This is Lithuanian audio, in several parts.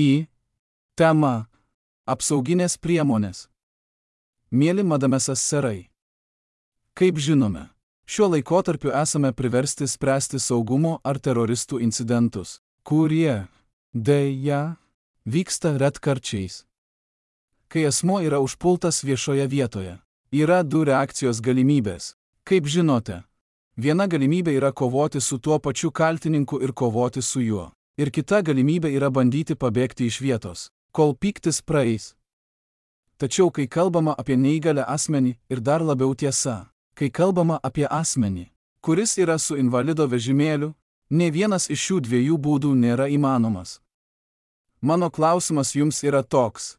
Į temą apsauginės priemonės. Mieli madamesas serai. Kaip žinome, šiuo laikotarpiu esame priversti spręsti saugumo ar teroristų incidentus, kurie, deja, vyksta retkarčiais. Kai asmuo yra užpultas viešoje vietoje, yra du reakcijos galimybės. Kaip žinote, viena galimybė yra kovoti su tuo pačiu kaltininku ir kovoti su juo. Ir kita galimybė yra bandyti pabėgti iš vietos, kol pyktis praeis. Tačiau kai kalbama apie neįgalę asmenį ir dar labiau tiesa, kai kalbama apie asmenį, kuris yra su invalido vežimėliu, nė vienas iš šių dviejų būdų nėra įmanomas. Mano klausimas jums yra toks.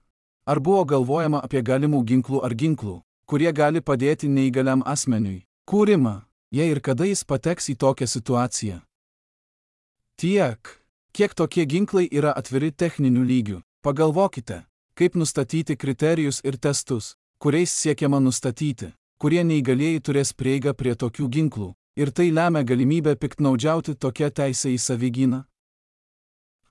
Ar buvo galvojama apie galimų ginklų ar ginklų, kurie gali padėti neįgaliam asmeniui, kūrimą, jei ir kada jis pateks į tokią situaciją? Tiek. Kiek tokie ginklai yra atviri techniniu lygiu? Pagalvokite, kaip nustatyti kriterijus ir testus, kuriais siekiama nustatyti, kurie neįgalieji turės prieigą prie tokių ginklų, ir tai lemia galimybę piktnaudžiauti tokią teisę į savigyną?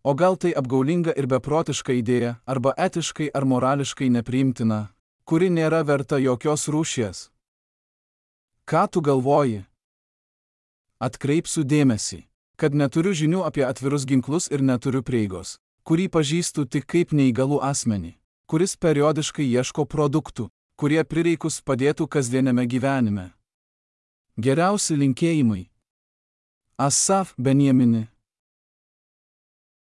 O gal tai apgaulinga ir beprotiška idėja, arba etiškai ar morališkai nepriimtina, kuri nėra verta jokios rūšies? Ką tu galvoji? Atkreipsiu dėmesį, kad neturiu žinių apie atvirus ginklus ir neturiu prieigos, kurį pažįstu tik kaip neįgalų asmenį, kuris periodiškai ieško produktų, kurie prireikus padėtų kasdieniame gyvenime. Geriausi linkėjimai. Asaf Benjamini.